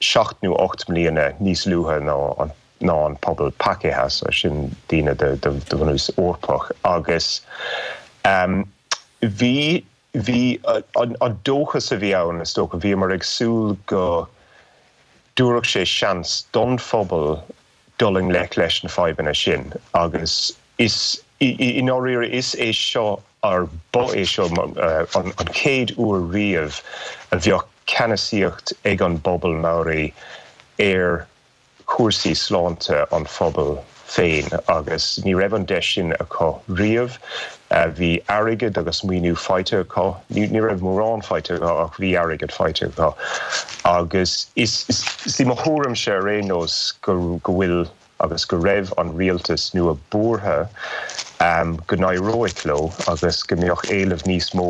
7 nó 8 mbliana níos luaithe ná an ná an pobal Pakeha, so sin daoine de de bhunús Eorpach agus bhí bhí an an dóchas a bhí ann is dócha, bhíomar ag súil go dtabharfadh sé seans don phobal dul i ngleic leis na fadhbanna sin agus is i ndáiríre is é seo or ba é seo an chéad uair riamh a bheadh ceannasaíocht ag an bpobal Maori ar chúrsaí sláinte an phobail féin agus ní raibh an deis sin acu riamh. Bhí airgead agus maoiniú faighte acu, ní raibh mórán faighte acu ach bhí airgead faighte acu agus is í mo thuairimse ar aon nós go bhfuil agus go raibh an rialtas nua buartha go n-éireoidh leo agus go mbeadh éileamh níos mó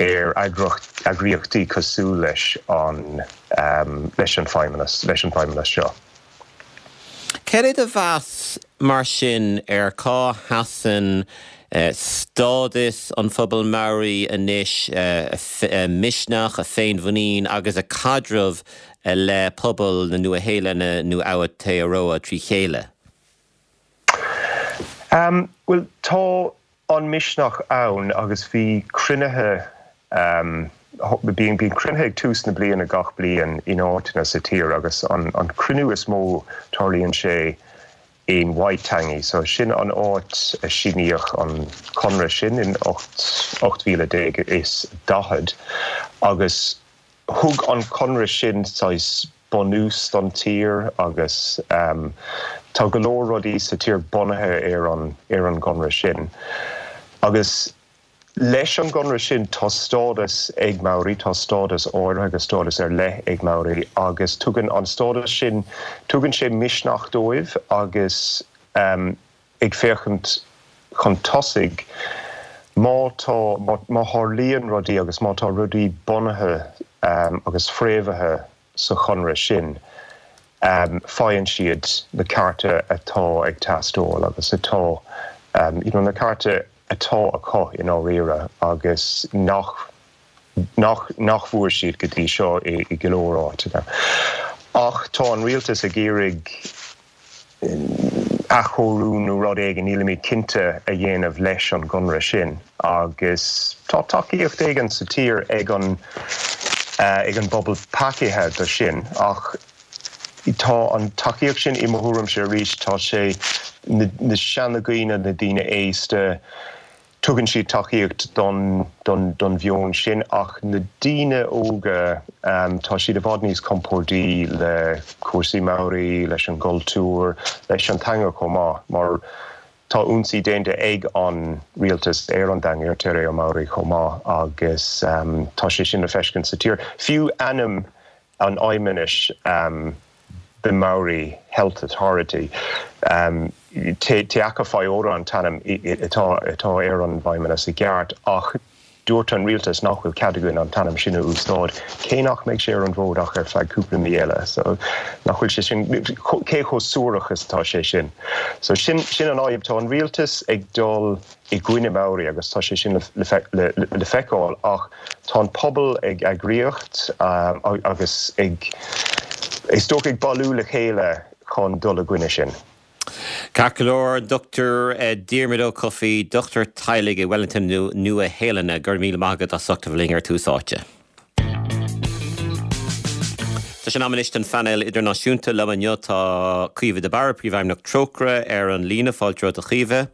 ar eagraíochtaí cosúil leis an leis an feidhmeannas leis an bhfeidhmeannas seo. Cad é do mheas mar sin ar cá sheasann stádas an phobail Maori anois, a misneach, a féinmhuinín agus a caidreamh le pobal na Nua-Shéalainne nó Aotearoa trí chéile? Bhuel, tá an misneach ann agus bhí cruinnithe, bíonn cruinnithe ag tús na bliana gach bliain in áiteanna sa tír agus an cruinniú is mó tarlaíonn sé in Waitangi. So sin an áit a síníodh an conradh sin in 1840 agus Thug an conradh sin saghas bunús don tír agus tá go leor rudaí sa tír bunaithe ar an ar an gconradh sin. Agus leis an gconradh sin tá stádas ag Maori, tá stádas áirithe agus stádas ar leith ag Maori agus tugann an stádas sin, tugann sé misneach dóibh agus ag féachaint chun tosaigh, má tá, má tharlaíonn rudaí agus má tá rudaí bunaithe agus fréamhaithe sa chonradh sin, faigheann siad na cearta atá ag teastáil agus atá, you know, na cearta atá acu i ndáiríre agus nach, nach, nach bhfuair siad go dtí seo i go leor áiteanna. Ach tá an rialtas ag iarraidh athchóiriú nó rud éigin, nílimid cinnte, a dhéanamh leis an gconradh sin agus tá tacaíocht éigin sa tír ag an ag an bpobal Pakeha do sin ach tá an tacaíocht sin, i mo thuairimse arís, tá sé na na seanadhaoine, na daoine aosta, Tugann siad tacaíocht don don mheon sin ach na daoine óga, tá siad i bhfad níos compórdaí le cúrsaí Maori, leis an gcultúr, leis an teanga chomh maith mar tá ionsaí déanta ag an rialtas ar an dteanga, ar Te Reo Maori chomh maith agus tá sé sin le feiscint sa tír. Fiú ainm an fheidhmeannais, the Maori Health Authority. Te Aka Whai Ora an t-ainm atá atá ar an bhfeidhmeannas i gceart ach dúirt an rialtas nach bhfuil cead againn an t-ainm sin a úsáid, cé nach mbeidh sé ar an bhfód ach ar feadh cúpla mí eile. So nach bhfuil sé sin, cé chomh suarach is atá sé sin? So sin sin an fhadhb, tá an rialtas ag dul i gcoinne Maori agus tá sé sin le le le feiceáil ach tá an pobal ag eagraíocht agus ag is dócha ag bailiú le chéile chun dul i gcoinne sin. Ceart go leor, Dr Diarmuid Ó Cofaigh, dochtúir teaghlaigh i Wellington na Nua-Shéalainne, go raibh míle maith agat as ucht a bheith linn ar Tús Áite. Tá sé in am anois don phainéal idirnáisiúnta. Liom inniu tá Caoimhe de Barra, Príomhfheidhmeannach Trócaire, ar an líne. Fáilte romhat a Chaoimhe.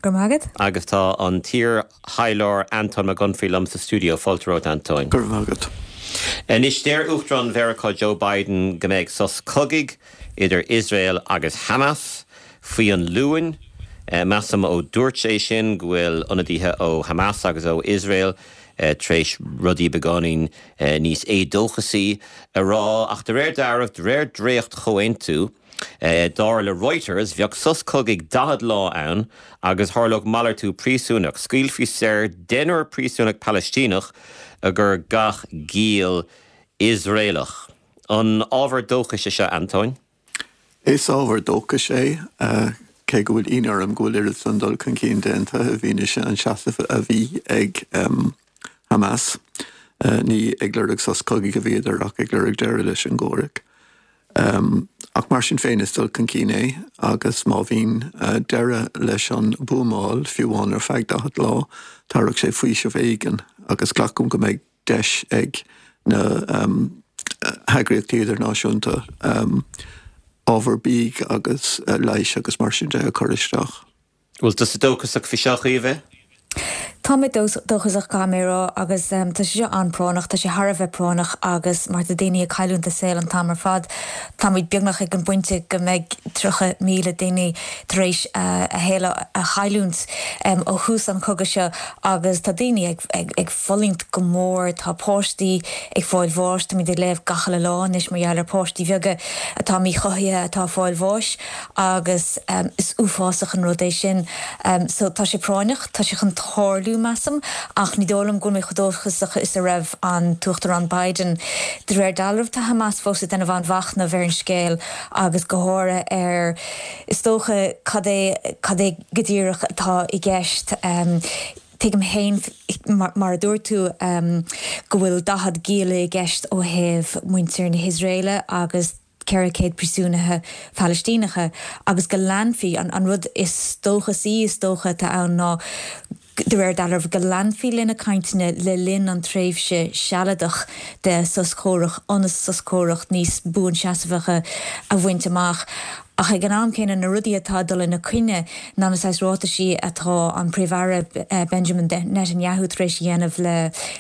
Go raibh maith agat. Agus tá an t-iar-thaidhleoir Antóin Mac Unfraidh liom sa stiúideo. Fáilte romhat, Antóin. Go raibh maith agat. Anois, deir Uachtarán Mheiriceá Joe Biden go mbeidh sos cogaidh idir Iosrael agus Hamas faoi an Luan. Measaim ó dúirt sé sin go bhfuil ionadaithe ó Hamas agus ó Iosrael tar éis rudaí beagáinín níos éadóchasaí a rá. Ach de réir dealraimh, de réir dréacht-chomhaontú, Dar le Reuters, bheadh sos cogaidh 40 lá ann agus tharlódh malartú príosúnach. Scaoilfí saor deichniúr príosúnach Palaistíneach i gcomhair gach giall Iosraelach. An ábhar dóchais é seo, Antóin? Is ábhar dóchais é, cé go bhfuil ionadh orm go bhfuil oiread san dul chun cinn déanta i bhfianaise an seasamh a bhí ag Hamas. Ní ag lorg sos cogaidh a bhíodar ach ag lorg deireadh leis an gcomhrac. Ach mar sin féin is dul chun cinn é agus má bhíonn deireadh leis an buamáil, fiú amháin ar feadh 40 lá, tabharfaidh sé faoiseamh éigin agus glacaim go mbeidh deis ag na heagraíochtaí idirnáisiúnta ábhar bídh agus leighis agus mar sin de a chur isteach. Bhfuil tusa dóchasach faoi seo, a Chaoimhe? Tá mé dóchasach, caithfidh mé a rá, agus tá sé seo an-práinneach, tá sé thar a bheith práinneach agus mar tá daoine ag cailliúint a saol an t-am ar fad, táimid beagnach ag an bpointe go mbeidh 30,000 duine tar éis a shaol a chailliúint ó thús an chogaidh seo agus tá daoine ag fulaingt go mór, tá páistí ag fáil bháis, táimid ag léamh gach uile lá anois mar gheall ar páistí bheaga atá míchothaithe atá ag fáil bháis. agus is uafásach an rud é sin. So tá sé práinneach, tá sé chun tarlú, measaim, ach ní dóigh liom go bhfuil mé chomh dóchasach is a raibh an tUachtarán Biden. De réir dealraimh tá Hamas fós ag déanamh an-mhachnaimh ar an scéal agus go háirithe ar, is dócha, cad é, cad é go díreach atá i gceist. Tuigim féin, mar a dúirt tú, go bhfuil 40 gialla i gceist ó thaobh muintir na hIosraeile agus, 400 príosúnaithe Phalaistíneacha agus go leanfaí, an rud is dóchasaí is dócha atá ann ná, de réir dealraimh, go leanfaí le na cainteanna le linn an tréimhse sealadach de sos comhrac ionas sos comhrac níos buanseasmhacha a bhaint amach. Ach ag an am céanna, na rudaí atá ag dul ina coinne ná na saghas ráitisí atá an Príomh-Aire Benjamin Netanyahu tar éis a dhéanamh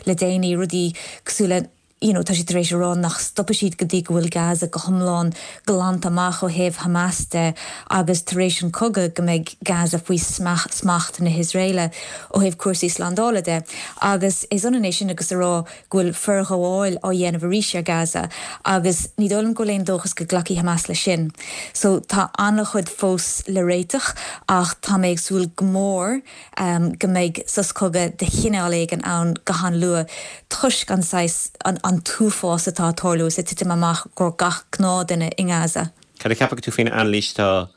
le déanaí, rudaí cosúil le, you know, tá sé tar éis a rá nach stopfaidh siad go dtí go bhfuil Gaza go hiomlán glanta amach ó thaobh Hamas de agus tar éis an cogadh go mbeidh Gaza faoi smacht na hIosraeile ó thaobh cúrsaí slándála de. Agus is ionann é sin agus a rá go bhfuil forghabháil á dhéanamh arís ar Gaza agus ní dóigh liom go bhfuil aon dóchas go nglacfaidh Hamas leis sin. So tá an-chuid fós le réiteach ach tá mé ag súil go mór go mbeidh sos cogaidh de chineál éigin ann go han-luath toisc an saghas, an t-uafás atá ag tarlú is ag titim amach os comhair gach gnáthduine i nGaza. Cad a cheapann tú faoin anailís atá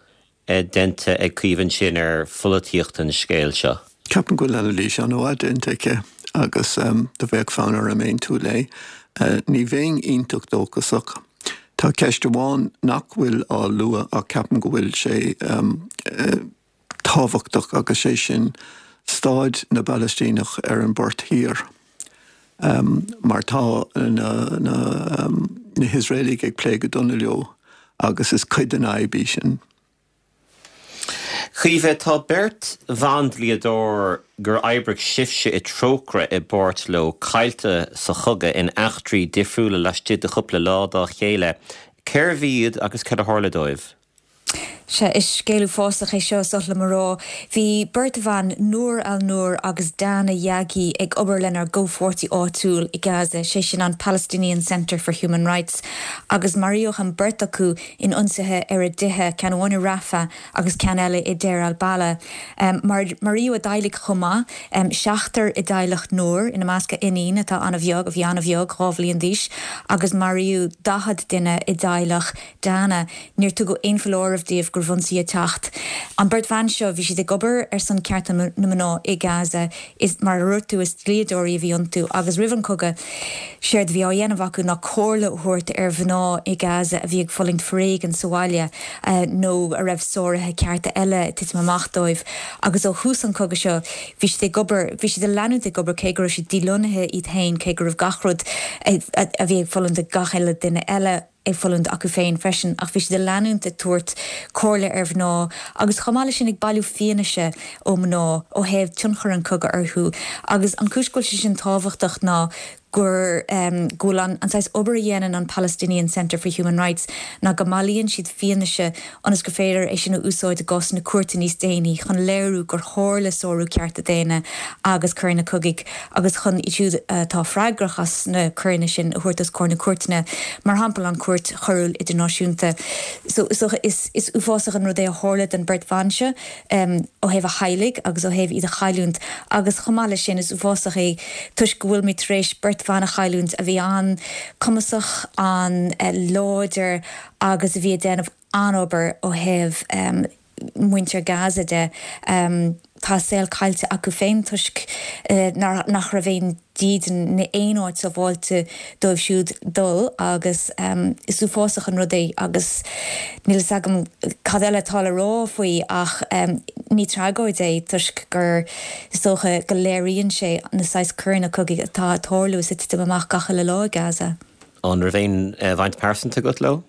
déanta ag Caoimhe ansin ar pholaitíocht an scéil seo? Ceapaim go bhfuil anailís an-mhaith déanta aici agus do bheadh fonn orm aontú léi. Ní bheinn iontach dóchasach. Tá ceist amháin nach bhfuil á lua ach ceapaim go bhfuil sé tábhachtach agus sé sin staid na bPalaistíneach ar an bPort Thiar mar tá na na hIosraelaigh ag plé go dona leo agus is cuid den fhadhb í sin. Caoimhe, tá beirt bhandlíodóir gur oibrigh sibhse i Trócaire i bpáirt leo caillte sa chogadh in eachtraí difriúla laistigh de chúpla lá dá chéile. Cérbh iad agus cad a tharla dóibh? Sea, is scéal uafásach é seo, is oth liom a rá. Bhí beirt bhan, Noor al-Noor agus Dana Yaghi, ag obair lenár gcomhpháirtí áitiúil i Gaza, sé sin an Palestinian Centre for Human Rights, agus maraíodh an beirt acu in ionsaithe ar a dtithe, ceann amháin i Rafah agus ceann eile i Deir al-Balah. Maraíodh a dteaghlaigh chomh maith, seachtar i dteaghlach Noor, ina measc a iníon atá an-bheag, a bhí an-bheag, 2 bhliain d'aois, agus maraíodh 40 duine i dteaghlach Dana, níor tugadh aon foláireamh dóibh go raibh ionsaí ag teacht. An beirt bhan seo, bhí siad ag obair ar son cearta na mná i Gaza. Is, mar a dúirt tú, is dlíodóirí a bhí iontu agus roimh an cogadh, séard a bhí á dhéanamh acu ná comhairle a thabhairt ar mhná i Gaza a bhí ag fulaingt foréigean sa bhaile nó a raibh sáruithe cearta eile ag titim amach dóibh. Agus ó thús an chogaidh seo, bhí siad ag obair, bhí siad ag leanúint ag obair cé go raibh siad dílonnaithe iad féin, cé go raibh gach rud a bhí ag fulaingt ag gach uile duine eile, ag fulaingt acu féin freisin, ach bhí siad ag leanúint ag tabhairt comhairle ar mhná agus chomh maith leis sin ag bailiú fianaise ó mhná ó thaobh tionchar an chogaidh orthu. Agus an chúis go bhfuil sé sin tábhachtach ná gur go bhfuil an saghas obair a dhéanann an Palestinian Centre for Human Rights ná go mbailíonn siad fianaise ionas gur féidir é sin a úsáid i gcásanna cúirte níos déanaí chun léiriú gur tharla sárú cearta daonna agus coireanna cogaidh agus chun iad siúd atá freagrach as na coireanna sin a thabhairt os comhair na cúirteanna, mar shampla an Chúirt Choiriúil Idirnáisiúnta. So is dócha is is uafásach an rud é a tharla don beirt bhan seo ó thaobh a theaghlaigh agus ó thaobh iad a chailliúint agus chomh maith leis sin is uafásach é toisc go bhfuilimid tar éis beirt bhan a chailliúint a bhí an-cumasach, an-láidir agus a bhí ag déanamh an-obair ó thaobh muintir Gaza de. Tá a saol caillte acu féin toisc nach raibh aon dídean ná aon áit sábháilte dóibh siúd dul agus is uafásach an rud é agus níl fhios agam cad eile atá le rá faoi ach ní tragóid é toisc gur is dócha go léiríonn sé na saghas coireanna cogaidh atá ag tarlú is ag titim amach gach uile lá i Gaza. An raibh aon bhaint pearsanta agat leo?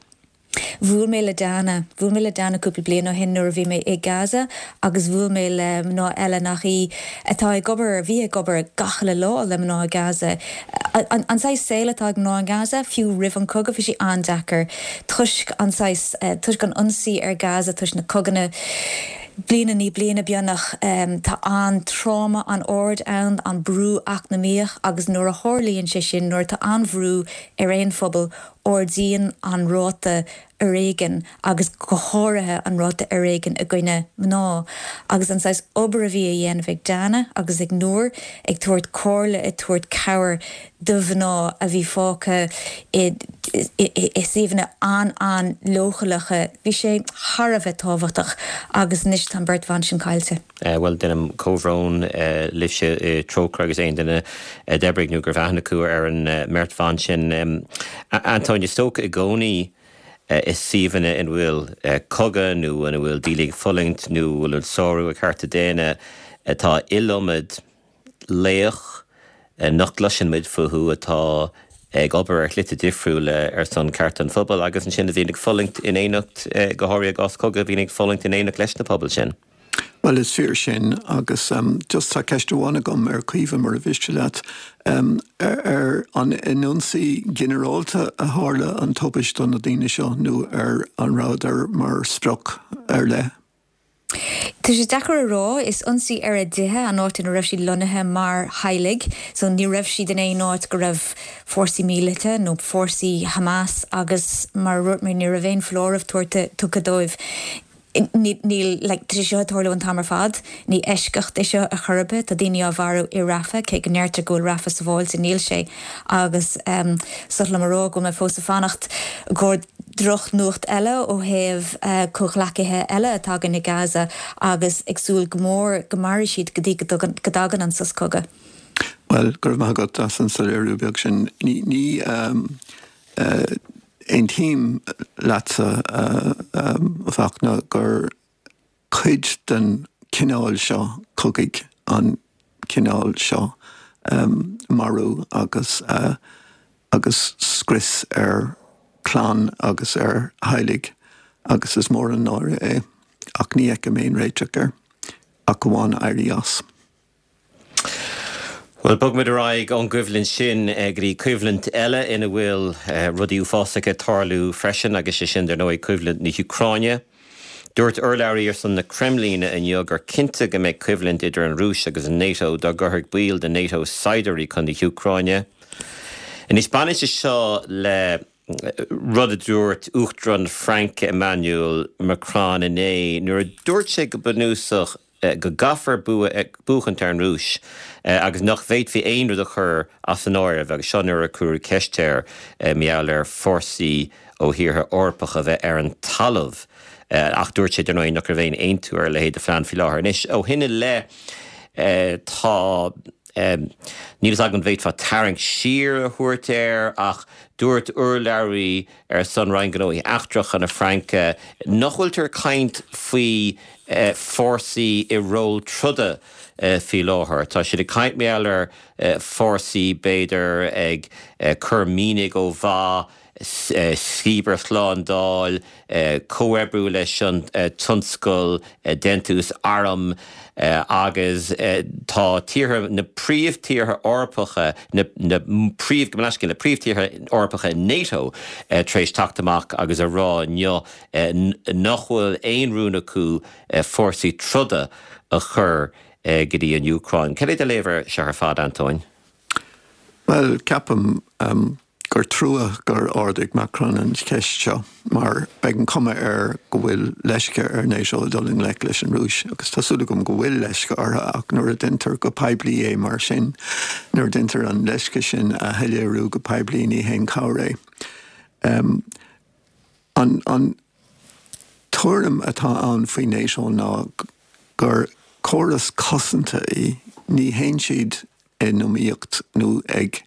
Bhuail mé le Dana. Bhuail mé le Dana cúpla bliain ó shin nuair a bhí mé i Gaza agus bhuail mé le mná eile nach í atá ag obair, a bhí ag obair gach uile lá le mná i Gaza. An saghas saoil atá ag mná i nGaza, fiú roimh an cogadh, bhí sé an-deacair toisc an saghas, toisc an ionsaí ar Gaza, toisc na coganna bliain i ndiaidh bliana beagnach. Tá an tráma an-ard ann, an brú eacnamaíoch agus nuair a tharlaíonn sé sin, nuair atá an-bhrú ar aon phobal, ardaíonn an ráta foréigin agus go háirithe an ráta foréigin i gcoinne mná. Agus an saghas obair a bhí a dhéanamh ag Dana agus ag Noor, ag tabhairt comhairle, ag tabhairt cabhair do mhná a bhí fágtha i i suíomhanna an-an-leochaileacha, bhí sé thar a bheith tábhachtach agus anois tá an bheirt bhan sin caillte. Bhuel, déanaim comhbhrón libhse i Trócaire agus aon duine a d'oibrigh nó go raibh aithne acu ar an mbeirt bhan sin. Antóin, is dócha i gcónaí i suíomhanna ina bhfuil cogadh nó ina bhfuil daoine ag fulaingt nó a bhfuil sárú ar chearta daonna, tá iliomad laoch nach gcloiseann muid fúthu atá ag obair ar shlite difriúla ar son cearta an phobail agus ansin a bhíonn ag fulaingt in éineacht, go háirithe i gcás cogaidh, a bhíonn ag fulaingt in éineacht leis na pobail sin. Bhuel, is fíor sin agus just tá ceist amháin agam ar Chaoimhe mura mhiste leat. Ar an in ionsaí ginearálta a tharla an tubaist do na daoine seo nó ar an rabhadar mar sprioc ar leith? Tá sé deacair a rá. Is ionsaí ar a dtithe, an áit ina raibh siad lonnaithe mar theaghlaigh. So ní raibh siad in aon áit go raibh fórsaí míleata nó fórsaí Hamas agus mar a dúirt mé ní raibh aon foláireamh tabhartha, tugtha dóibh. Níl, like, tá sé seo ag tarlú an t-am ar fad. Ní eisceacht é seo ar chor ar bith. Tá daoine á mharú i Rafah, cé go ndeirtear go bhfuil Rafah sábháilte, níl sé. Agus is oth liom a rá go bhfuil mé fós ag fanacht go drochnuacht eile ó thaobh comhghleacaithe eile atá againn i Gaza agus ag súil go mór go mairfidh siad go dtí go dtagann an sos cogaidh. Bhuel, go raibh maith agat as an soiléiriú beag sin. Ní, ní aontaím leatsa, a Fachtna, gur cuid den chineál seo cogaidh an cineál seo marú agus agus scrios ar chlann agus ar theaghlaigh agus is mór an náire é ach ní fheicim aon réiteach air ach amháin éirí as. Bhuel, bogfaimid ar aghaidh ón gcoimhlint sin go dtí coimhlint eile ina bhfuil rudaí uafásacha ag tarlú freisin, agus sé sin, dar ndóigh, coimhlint na hÚcráine. Dúirt urlabhraí ar son na Creimlíne inniu gur cinnte go mbeidh coimhlint idir an Rúis agus an NATO dá gcuirfeadh baill de NATO saighdiúirí chun na hÚcráine. Anois baineann sé seo le rud a dúirt Uachtarán na Fraince Emmanuel Macron inné nuair a dúirt sé go bunúsach go gcaithfear buachaint ar an Rúis agus nach bhféadfaí aon rud a chur as an áireamh agus seo nuair a cuireadh ceist air mar gheall ar fórsaí ó thíortha Eorpacha a bheith ar an talamh ach dúirt sé dar ndóigh nach raibh aon aontú ar a leithéid de phlean faoi láthair. Anois ó shin i leith tá, níl fhios agam an bhféadfá tarraingt siar a thabhairt air ach dúirt urlabhraí ar son Roinn Gnóthaí Eachtracha na Fraince nach bhfuiltear ag caint faoi fórsaí i ról troda faoi láthair. Tá siad ag caint mar gheall ar fórsaí b'fhéidir ag cur mianaigh ó mhaith, cibearshlándáil, comhoibriú leis an tionscal déantús arm agus tá tíortha, na príomhthíortha Eorpacha, na príomh, gabh mo leithscéal, na príomhthíortha Eorpacha NATO tar éis teacht amach agus a rá inniu nach bhfuil aon rún acu fórsaí troda a chur go dtí an Úcráin. Cad é do léamh air seo ar fad, Antóin? Bhuel, ceapaim gur trua gur ardaigh Macron an cheist seo mar beidh an chuma air go bhfuil leisce ar NATO dul i ngleic leis an Rúis agus tá súil agam go bhfuil leisce orthu ach nuair a deintear go poiblí é mar sin, nuair a deintear an leisce sin a shoiléiriú go poiblí ní haon chabhair é. An tuairim atá ann faoi NATO ná gur córas cosanta í, ní théann siad in iomaíocht nó ag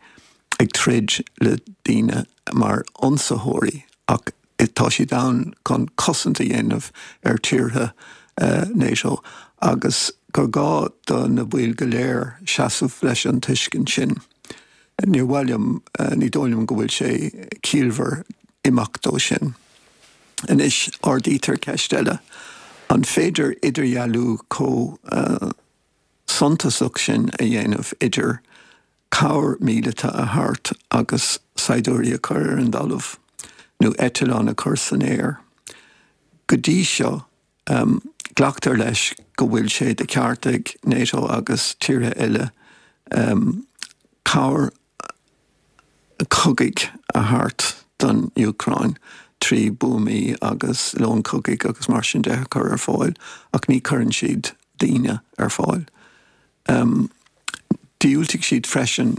ag troid le daoine mar ionsaitheoirí ach tá siad ann chun cosaint a dhéanamh ar tíortha NATO agus gur gá do na baill go léir seasamh leis an tuiscint sin. Níor mhaith liom, ní dóigh liom go bhfuil sé ciallmhar imeacht ó sin. Anois ardaítear ceist eile, an féidir idirdhealú chomh suntasach sin a dhéanamh idir cabhair mhíleata a thabhairt agus saighdiúirí a chur ar an dtalamh nó eitleáin a chur san aer. Go dtí seo, glactar leis go bhfuil sé de cheart ag NATO agus tíortha eile cabhair cogaidh a thabhairt don Úcráin trí buamaí agus lón cogaidh agus mar sin de a chur ar fáil ach ní chuireann siad daoine ar fáil. Dhiúltaigh siad freisin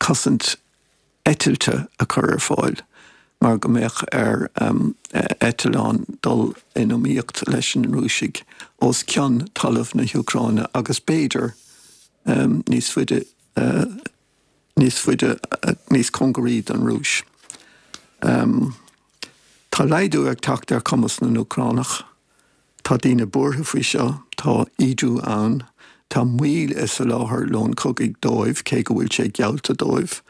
cosaint eitilte a chur ar fáil mar go mbeadh ar eitleáin dul in iomaíocht leis na Rúisigh os cionn talamh na hÚcráine agus b'fhéidir níos faide níos faide, níos cóngaraí don Rúis. Tá laghdú ag teacht ar chumas na nÚcránach. Tá daoine buartha faoi seo, tá ídiú ann, tá moill i soláthar lón cogaidh dóibh, cé go bhfuil sé geallta dóibh,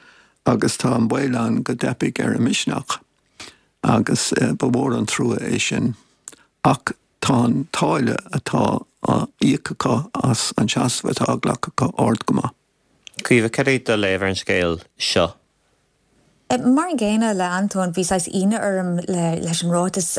agus tá an baol ann go dteipfidh ar a misneach. Agus ba mhór an trua é sin. Ach tá an táille atá á íoc acu as an seasamh atá á ghlacadh acu ard go maith. Caoimhe, cad é do léamh ar an scéal seo? Mar an gcéanna le Antóin, bhí saghas ionadh orm leis an ráiteas,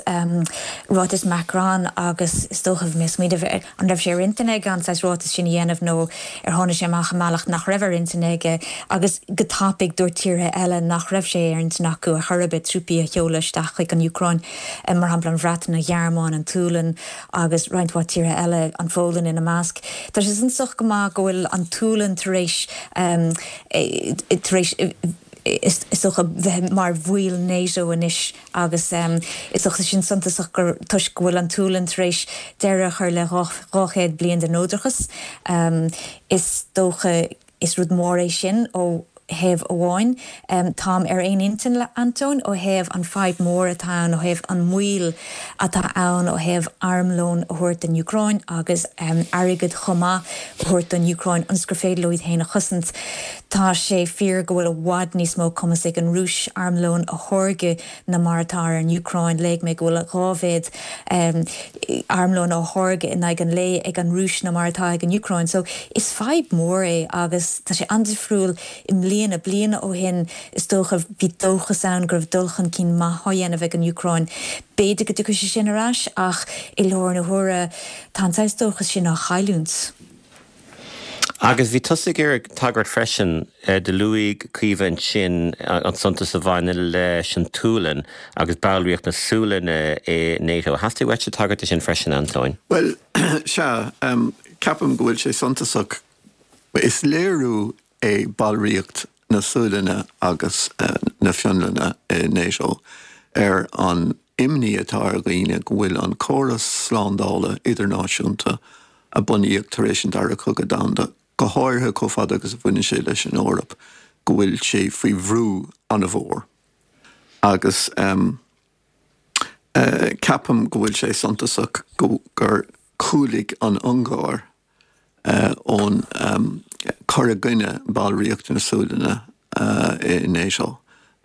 ráiteas Macron agus is dócha bhí mé ag smaoineamh an raibh sé ar intinn aige an saghas ráiteas sin a dhéanamh nó ar tháinig sé amach i mbealach nach raibh ar intinn aige agus go tapaidh dúirt tíortha eile nach raibh sé ar intinn acu ar chor ar bith trúpaí a sheoladh isteach chuig an Úcráin, mar shampla an Bhreatain, an Ghearmáin, an tSualainn agus roinnt mhaith tíortha eile, an Pholainn ina measc. Tá sé suntasach go maith go bhfuil an tSualainn tar éis tar éis is dócha bheith mar bhaill NATO anois agus is dócha sin suntasach gur toisc go bhfuil an tSualainn tar éis deireadh a chur le 200 bliain de neodrachas. Is dócha is rud mór é sin ó thaobh amháin. Táim ar aon intinn le Antóin ó thaobh an fadhb mór atá ann, ó thaobh an moill atá ann ó thaobh armlón a thabhairt don Úcráin agus airgead chomh maith a thabhairt don Úcráin ionas gur féidir leo iad féin a chosaint. Tá sé fíor go bhfuil i bhfad níos mó cumas ag an Rúis armlón a tháirgeadh ná mar atá ar an Úcráin. Léigh mé go bhfuil 2 mhéad armlón á tháirgeadh in aghaidh an lae ag an Rúis ná mar atá ag an Úcráin. So is fadhb mhór é agus tá sé an-difriúil i mbliana. Bliain ó shin is dócha bhí dóchas ann go raibh dul chun cinn maith á dhéanamh ag an Úcráin. B'fhéidir go dtiocfaidh sé sin ar ais ach i láthair na huaire tá an saghas dóchas sin á chailliúint. Agus bhí tusa ag iarraidh tagairt freisin, do luaigh Caoimhe ansin an suntas a bhaineann leis an tSualainn agus ballraíocht na Sualainne i NATO. Theastaigh uaitse tagairt de sin freisin, Antóin? Bhuel, sea, ceapaim go bhfuil sé suntasach. Is léiriú é ballraíocht na Sualainne agus na Fionlainne i NATO ar an imní atá ar dhaoine go bhfuil an córas slándála idirnáisiúnta a bunaíodh tar éis an Dara Cogadh Domhanda, go háirithe chomh fada agus a bhaineann sé leis an Eoraip, go bhfuil sé faoi bhrú an-mhór. Agus ceapaim go bhfuil sé suntasach gur chúlaigh an Ungáir ón cur i gcoinne ballraíocht na Sualainne i NATO.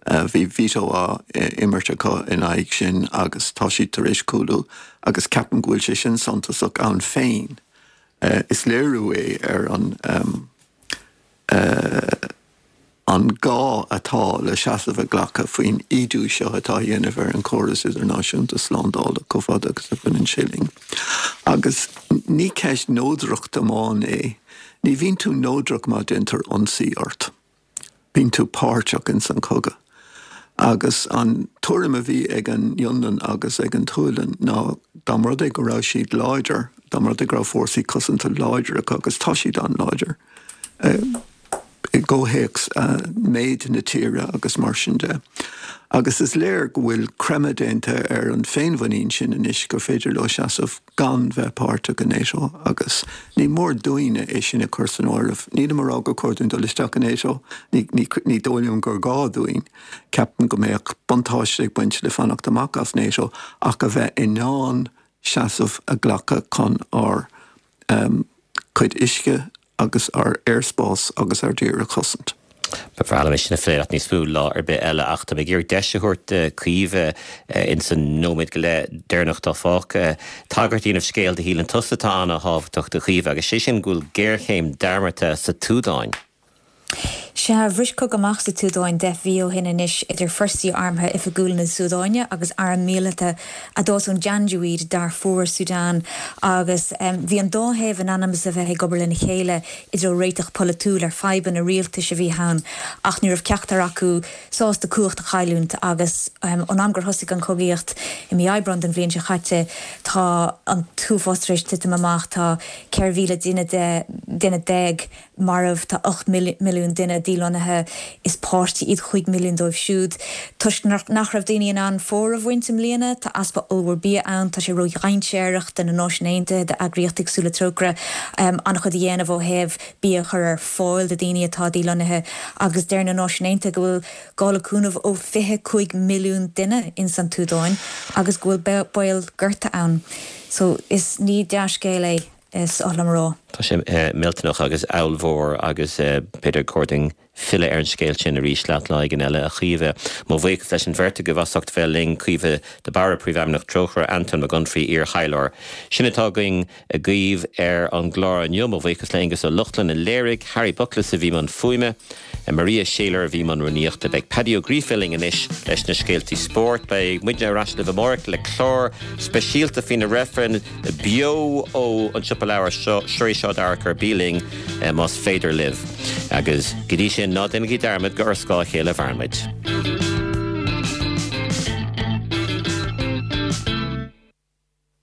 Bhí veto á imirt acu in aghaidh sin agus tá siad tar éis cúlú agus ceapaim go bhfuil sé sin suntasach ann féin. Is léiriú é ar an an gá atá le seasamh a ghlacadh faoin ídiú seo atá á dhéanamh ar an chóras idirnáisiúnta slándála chomh fada agus a bhaineann sé linn. Agus ní ceist neodrachta amháin é. Ní bhíonn tú neodrach má déantar ionsaí ort. Bíonn tú páirteach ins an chogadh. Agus an tuairim a bhí ag an Fhionlainn agus ag an tSualainn ná dá mba rud é go raibh siad láidir, dá mba rud é go raibh fórsaí cosanta láidir acu, agus tá siad an-láidir, i gcomhthéacs méid na tíre agus mar sin de. Agus is léir go bhfuil creimeadh déanta ar an féinmhuinín sin anois gur féidir leo seasamh gan bheith páirteach i NATO agus ní mór dúinne é sin a chur san áireamh. Nílim ag rá gur chóir dúinn dul isteach i NATO, ní dóigh liom gur gá dúinn. Ceapaim go mbeadh buntáiste ag baint le fanacht amach as NATO ach a bheith in ann seasamh a ghlacadh chun ár cuid uisce agus ár aerspás agus ár dtír a chosaint. Ba bhreá liom é sin a phlé leat níos mó lá ar bith eile ach tá mé ag iarraidh deis a thabhairt do Chaoimhe ins an nóiméad go leith deireanach atá fágtha tagairt a dhéanamh scéal a shíleann tusa atá ana-thábhachtach a Chaoimhe agus sé sin go bhfuil géarchéim dearmadta sa tSúdáin. Sea, bhris cogadh amach sa tSúdáin 10 mhí ó shin anois idir forsaí armtha oifigiúla na Súdáine agus arm míleata a d'fhás ón Janjaweed, Darfur, Sudan, agus bhí an dá thaobh in ainm is a bheith ag obair lena chéile i dtreo réiteach polaitiúil ar fadhbanna rialtais a bhí ann ach ní raibh ceachtar acu sásta cumhacht a chailliúint agus ón am gur thosaigh an chogaíocht i mí Aibreáin den bhliain seo chaite tá an t-uafás tar éis titim amach, tá 14,000 duine marbh, tá 8 milliún duine dílonnaithe, is páistí iad 5 milliún dóibh siúd. Toisc nach raibh daoine in ann fómhar a bhaint i mbliana, tá easpa ollmhór bia ann, tá sé ródhainséarach do na Náisiúin Aontaithe, d'eagraíochtaí cosúil le Trócaire, an-chuid a dhéanamh ó thaobh bia a chur ar fáil do dhaoine atá dílonnaithe agus deir na Náisiúin Aontaithe go bhfuil gá le cúnamh ó 25 milliún duine ins an tSúdáin agus go bhfuil baol gorta ann. So, is ní dea-scéal é. Is oth liom a rá. Tá sé millteanach agus ollmhór agus b'fhéidir gur chóir dúinn filleadh ar an scéal sin arís leat lá éigin eile, a Chaoimhe. Mo bhuíochas leis an bheirt agaibh as ucht bheith linn, Caoimhe de Barra, Príomhfheidhmeannach Trócaire, Antóin Mac Unfraidh, iar-thaidhleoir. Sin atá againn agaibh ar an gclár inniu. Mo bhuíochas le Aengus Ó Lochlainn a léirigh, Harry Buckless a bhí i mbun fuaime, Maria Shayler a bhí i mbun rúnaíochta. Beidh Paddy Ó Gríofa linn anois leis na scéaltaí spóirt. Beidh muidne ar ais libh amárach le clár speisialta faoi na reifrinn beo ó an Siopa Leabhar seo, Seo D'Fhearchair. Bí linn más féidir libh. Agus go dtí sin, ná déanaigí dearmad gur ar scáth a chéile a mhaireann muid.